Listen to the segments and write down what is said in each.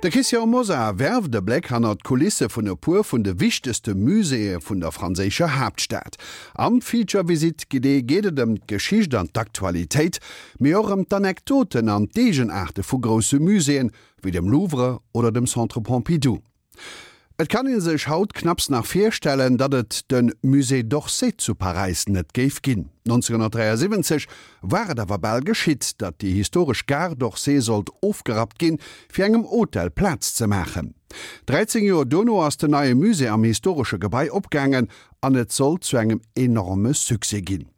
De Christian Mosar werft e Bléck hannert d'Kulisse vun e puer vun de wichtegste Muséeë vun der franséischer Haaptstad. Am Feature Visite guidée geet et ëm d'Geschicht an d'Aktualitéit, mee och ëm d'Anekdoten an d'Eegenaarte vu grousse Muséeën, wéi dem Louvre oder dem Centre Pompidou. Et kann ee sech haut knapps nach virstellen, datt et de Musée d'Orsay zu Paräis net géif ginn. 1973 war et awer bal geschitt, datt déi historesch Gare d'Orsay sollt ofgerappt ginn, fir engem Hotel Plaz ze maachen. 13 Joer dono ass den neie Musée am historesche Gebai opgaangen an et sollt zu engem enorme Succès ginn.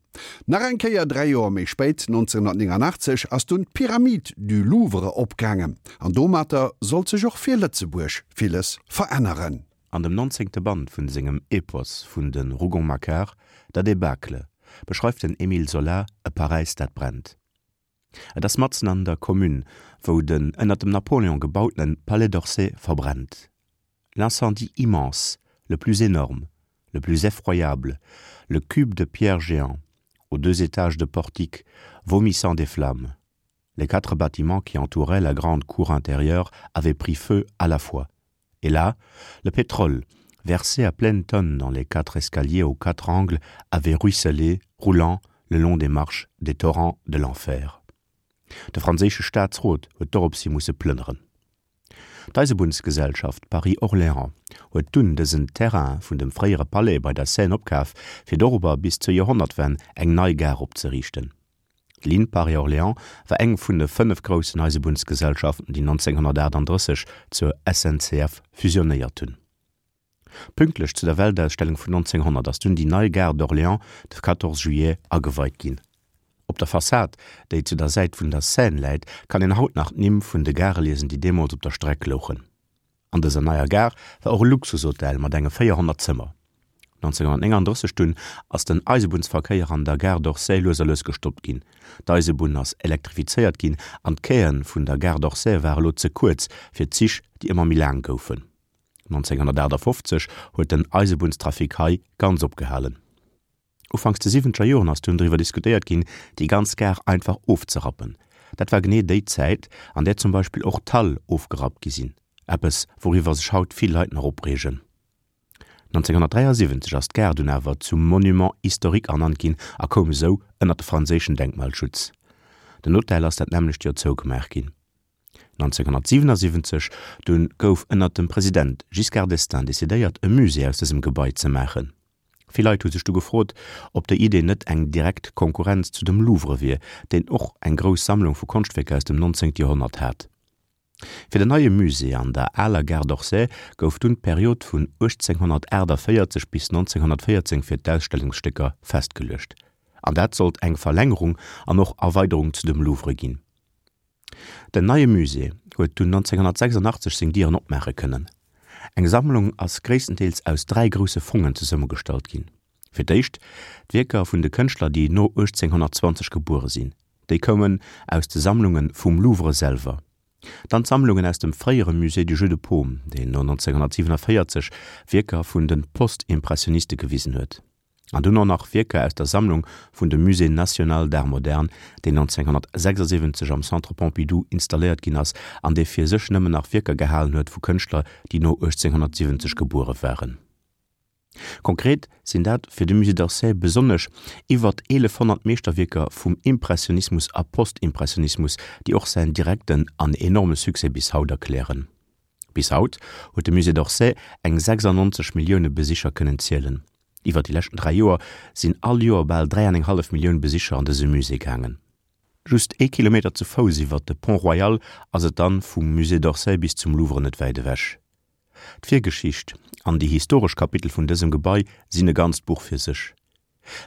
Nach eng Kéier 3 Joer méi spéit, 1989, ass dunn d'Pyramide du Louvre opgaangen an domatter sollt sech och fir Lëtzebuerg villes veränneren. An dem nonzéngte Band vun sengem Epos vun de Rougon-Macquart, Der Débâcle, beschreift den Émile Zola e Paräis dat brennt. Et ass matzen an der Commune, wou den ënner dem Napoléon gebautene Palais d'Orsay verbrennt. L'incendie immense, le plus énorme, le plus effroyable, le cube de pierre géant, aux deux étages de portiques, vomissant des flammes. Les quatre bâtiments qui entouraient la grande cour intérieure avaient pris feu à la fois. Et là, le pétrole, versé à pleine tonne dans les quatre escaliers aux quatre angles, avait ruisselé, roulant le long des marches des torrents de l'enfer. De franséische Staatsrot huet doropshi musse plënneren. D'Eisebunnsgesellschaft Paris-Orléans huet dunn dësen Terrain vun dem fréiere Palais bei der Seine opkaf, fir dorobber bis zur Joerhonnertwenn eng nei Gare opzeriichten. D'Ligne Paris-Orléans war eng vun de 5 groussen Eisebunnsgesellschaften, déi 1938 zur SNCF fusionéiert hunn. Pünktlech zu der Weltausstellung vun 1900 ass dunn déi nei Gare d'Orléans de 14 juillet ageweit ginn. Op der Fassad, déi zu der Säit vun der Seine läit, kann een haut nach d'Nimm vun de Gare liesen, déi deemools op der Streck louchen. An dëser neier Gare war och e Luxushotel mat enge 400 Zëmmer. 1939 dunn ass den Eisebunnsverkéier an der Gare d'Orsay lues a lues gestoppt ginn. D'Eisebunn ass elektrifizéiert ginn an d'Quaien vun der Gare d'Orsay ware lo ze kuerz fir d'Zich, déi ëmmer méi laang goufen. 1958 huet den Eisebunnstrafic hei ganz opgehalen. Ufanks de siwwenzeger Joren ass dunn driwwer diskutéiert ginn, déi ganz Gare einfach ofzerappen. Dat war genee déi Zäit, an där zum Beispill och d'Hale ofgerappt gi sinn, eppes wouriwwer sech haut vill Leit nach opreegen. 1973 ass d'Gare dunn awer zum Monument historique ernannt ginn a koum esou ënner de franséischen Denkmalschutz. Den Hotel ass dat nämmlecht Joer zougemaach ginn. 1977 dunn gouf ënner dem President Giscard d'Estaing decidéiert, e Musée aus dësem Gebai ze maachen. Vill Leit hu sech du gefrot, ob déi Idee net eng direkt Konkurrenz zu dem Louvre wier, deen och eng grouss Sammlung vu Konschtwierker aus dem 19. Joerhonnert hat. Fir den neie Musée an der aler Gare d'Orsay gouf dunn d'Period vun 1848 bis 1914 fir d'Ausstellungsstécker festgeluecht. An dat sollt eng Verlängerung an och Erweiderung zu dem Louvre ginn. Den neie Musée huet dunn 1986 seng Dieren opmaache kënnen. Eng Sammlung ass gréisstendeels aus 3 grousse Fongen zesummegestallt ginn. Fir d'éischt d'Wierker vun de Kënschtler, déi no 1820 gebuere sinn. Déi koumen aus de Sammlunge vum Louvre selwer. Dann d'Sammlungen aus dem fréiere Musée du Jeu de Paume, deen no 1947 Wierker vun de Postimpressioniste gewisen huet. An dunn och nach Wierker aus der Sammlung vun dem Musée national d'art moderne, deen 1976 am Centre Pompidou installéiert ginn ass an dee fir sech nëmmen nach Wierker gehalen huet vu Kënschtler, déi no 1870 gebuere waren. Konkret sinn dat fir de Musée d'Orsay besonnesch iwwert 1.100 Meeschterwierker vum Impressionismus a Postimpressionismus, déi och säin direkten an enorme Succès bis haut erklären. Bis haut huet de Musée d'Orsay eng 96 Millioune Besicher kënnen zielen. Iwwer déi leschten 3 Joer sinn all Joer bal 3 an eng hallef Millioun Besicher an dëse Musée gaangen. Just ee Kilometer zu Fouss iwwer de Pont Royal ass et dann vum Musée d'Orsay bis zum Louvre net wäit ewech. D'Virgeschicht an déi historesch Kapitel vun dësem Gebai sinn e ganzt Buch fir sech.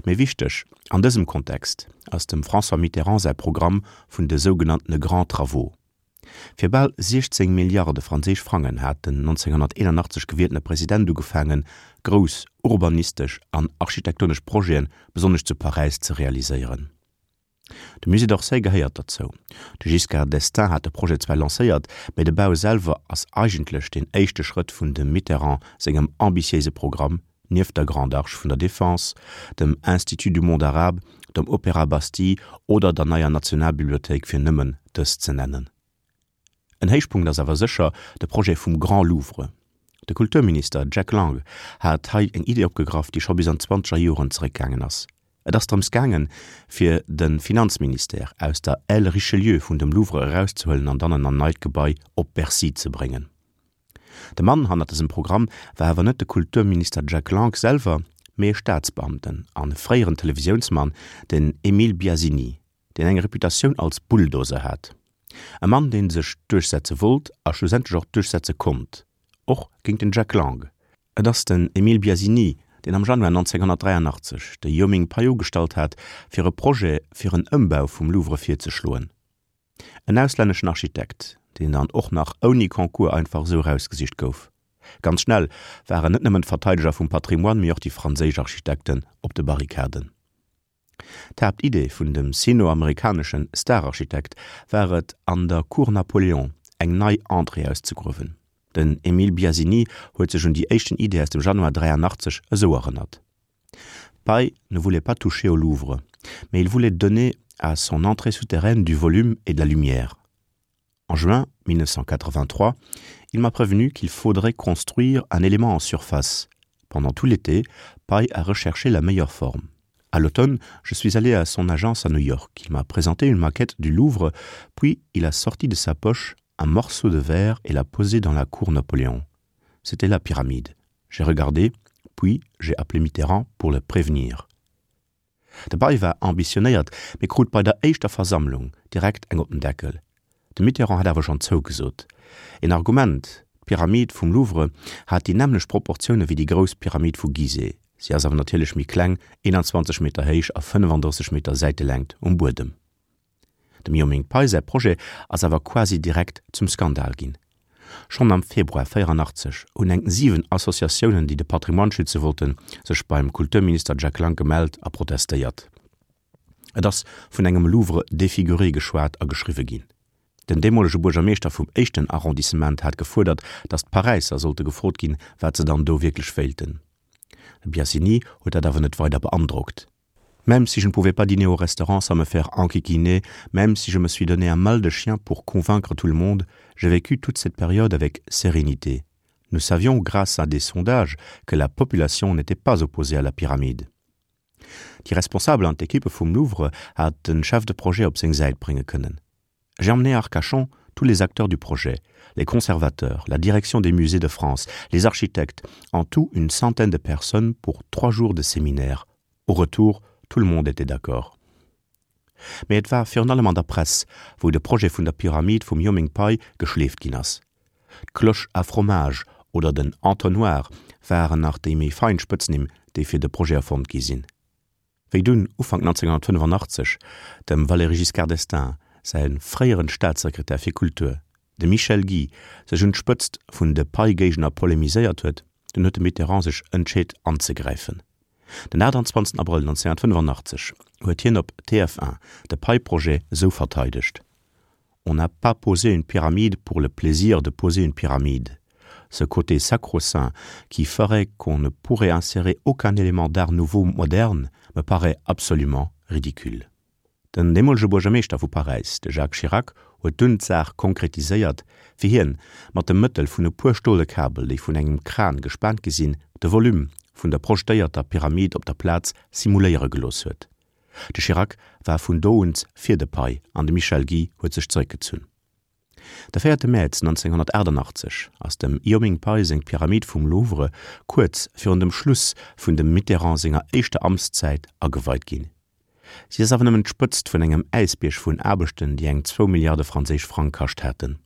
Méi wichteg an dësem Kontext ass dem François Mitterrand säi Programm vun de sougenanntene Grands Travaux. Fir bal 16 Milliarde franséisch Frangen hat den 1981 gewieltene President ugefaangen, grouss urbanistesch an architektonesch Projeten, besonnesch zu Paräis, ze realiséieren. De Musée d'Orsay gehéiert derzou. De Giscard d'Estaing hat de Projet zwar lancéiert, mä de Bau selwer ass eigentlech deen éischte Schrëtt vun dem Mitterrand sengem ambitiéise Programm, nieft der Grande Arche vun der Défense, dem Institut du monde arabe, dem Opéra Bastille oder der neier Nationalbibliothéik, fir nëmmen dës ze nennen. En Héichpunkt ass awer sécher de Projet vum Grand Louvre. De Kulturminister Jack Lang hat hei eng Idee opgegraff, déi scho bis an d'zwanzeger Joren zeréckgaangen ass. Et ass drëms gaangen, fir de Finanzministère aus der Aile Richelieu vun dem Louvre erauszehuelen an dann an en neit Gebai op Bercy ze bréngen. De Mann hannert dësem Programm war awer net de Kulturminister Jack Lang selwer, mee e Staatsbeamten an e fréieren Televisiounsmann, den Emile Biasini, deen eng Reputatioun als Bulldozer hat. E Mann, dee sech duerchsetze wollt a schlussendlech och duerchsetze konnt, och géint den Jack Lang. Et ass den Emile Biasini, deen am Januar 1983 de Yo Ming Pei ugestallt hat, fir e Projet fir en Ëmbau vum Louvre virzeschloen. En auslänneschen Architekt, deen dann och nach ouni Concours einfach esou erausgesicht gouf. Ganz schnell waren net nëmmen d'Verteideger vum Patrimoine, mee och déi franséisch Architekten op de Barrikaden. D'Haaptidee vun dem sino-amerikaneschen Stararchitekt war et, an der Cour Napoléon eng nei Entrée auszegruewen. Den Emile Biasini huet sech un déi éischten Idee aus dem Januar 83 esou erënnert, Pei ne voulait pas toucher au Louvre, mais il voulait donner à son entrée souterraine du volume et de la lumière. En juin 1983, il m'a prévenu qu'il faudrait construire un élément en surface. Pendant tout l'été, Pei a recherché la meilleure forme. À l'automne, je suis allé à son agence à New York. Il m'a présenté une maquette du Louvre, puis il a sorti de sa poche un morceau de verre et l'a posé dans la cour Napoléon. C'était la pyramide. J'ai regardé, puis j'ai appelé Mitterrand pour le prévenir. De Bay war ambitionéiert, mee krut bei der éischter Versammlung direkt eng op den Deckel. De Mitterrand hat awer schonn zougesot. Een Argument, D'Pyramid vum Louvre hat déi nämmlecht Proportioune wéi déi grouss Pyramid vu Gizeh. Si ass awer natierlech méi kleng, 21 Meter héich a 35 Meter Säitelängt um Buedem. Dem Yo Ming Pei säi Projet ass awer quasi direkt zum Skandal ginn. Schonn am Februar 84 hunn eng 7 Associatiounen, déi de Patrimoine schütze wollten, sech beim Kulturminister Jack Lang gemellt a protestéiert. Et ass vun engem Louvre défiguré geschwat a geschriwwe ginn. Den deemolege Buergermeeschter vum éischten Arrondissement hat gefuerdert, datt d'Paräisser sollte gefrot ginn, wat se dann do wierklech wéilten. De Biasini huet dat awer net weider beandrockt. Même si je ne pouvais pas dîner au restaurant sans me faire enquiquiner, même si je me suis donné un mal de chien pour convaincre tout le monde, j'ai vécu toute cette période avec sérénité. Nous savions grâce à des sondages que la population n'était pas opposée à la pyramide. Déi Responsabel an d'Equippe vum Louvre hat den Chef de projet op seng Säit brénge kënnen. J'ai emmené à Arcachon tous les acteurs du projet, les conservateurs, la direction des musées de France, les architectes, en tout une centaine de personnes pour trois jours de séminaire. Au retour, tout le monde était d'accord. Mee et war virun allem an der Press, wou de Projet vun der Pyramid vum Yo Ming Pei geschleeft ginn ass. D'Cloche à fromage oder den Entonnoir waren nach déi méi fein Spëtznimm, déi fir de Projet erfonnt gi sinn. Wéi dunn Ufank 1985 dem Valéry Giscard d'Estaing säi fréieren Staatssekretär fir Kultur, de Michel Guy, sech un d'Spëtzt vun de Pei-Géigner polemiséiert huet, dunn huet de Mitterrand sech entscheet anzegräifen. Den 28 Abrëll 1985 huet hien op TF1 de Pei-Projet esou verteidegt, On n'a pas posé une pyramide pour le plaisir de poser une pyramide. Ce côté sacro-saint qui ferait qu'on ne pourrait insérer aucun élément d'art nouveau moderne me paraît absolument ridicule. Den deemolege Buergermeeschter vu Paräis, de Jacques Chirac, huet dunn d'Saach konkretiséiert, wéi hien mat dem Mëttel vun e puer stole Kabel, déi vun engem Kran gespaant gi sinn, de Volume vun der projetéierter Pyramid op der Plaz simuléiere gelooss huet. De Chirac war vun do un fir de Pei an de Michel Guy huet sech zeréckgezunn. De 4 Mäerz 1988 ass dem Io Ming Pei seng Pyramid vum Louvre kuerz virun dem Schluss vun dem Mitterrand senger éischter Amtszäit ageweit ginn. Si ass awer nëmmen d'Spëtzt vun engem Äisbierg vun Aarbechten, déi eng zwou Milliarde franséisch Frang kascht haten.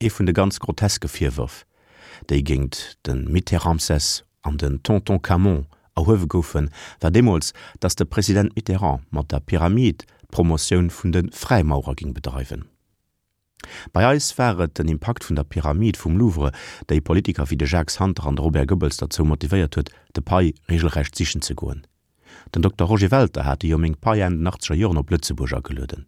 Ee vun de ganz groteske Virwërf, déi géint de Mitterramsès an den Tonton Camon erhuewe goufen, war deemools, datt de President Mitterrand mat der Pyramid d'Promotioun vun de Fräimaurer géing bedreiwen. Bei eis war et den Impakt vun der Pyramid vum Louvre, déi Politiker wéi de Jacques Santer an de Robert Goebbels derzou motivéiert huet, de Pei regelrecht sichen ze goen. Den Dokter Roger Welter hat de Jo Ming Pei Enn den achtzeger Joren op Lëtzebuerg agelueden.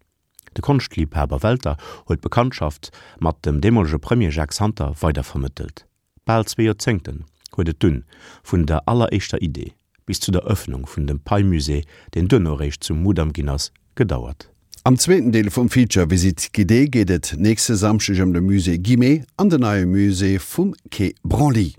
De Konschtliebhaber Welter huet d'Bekanntschaft mat dem deemolege Premier Jacques Santer weider vermëttelt. Bal zwee Joerzéngten huet et dunn vun der alleréischter Idee bis zu der Ëffnung vun dem Pei-Musée, deen duerno eréischt zum Mudam ginn ass, gedauert. Am zweeten Deel vum Feature Visite guidée geet et nächste Samschdeg ëm de Musée Guimet an den neie Musée vum Quai Branly.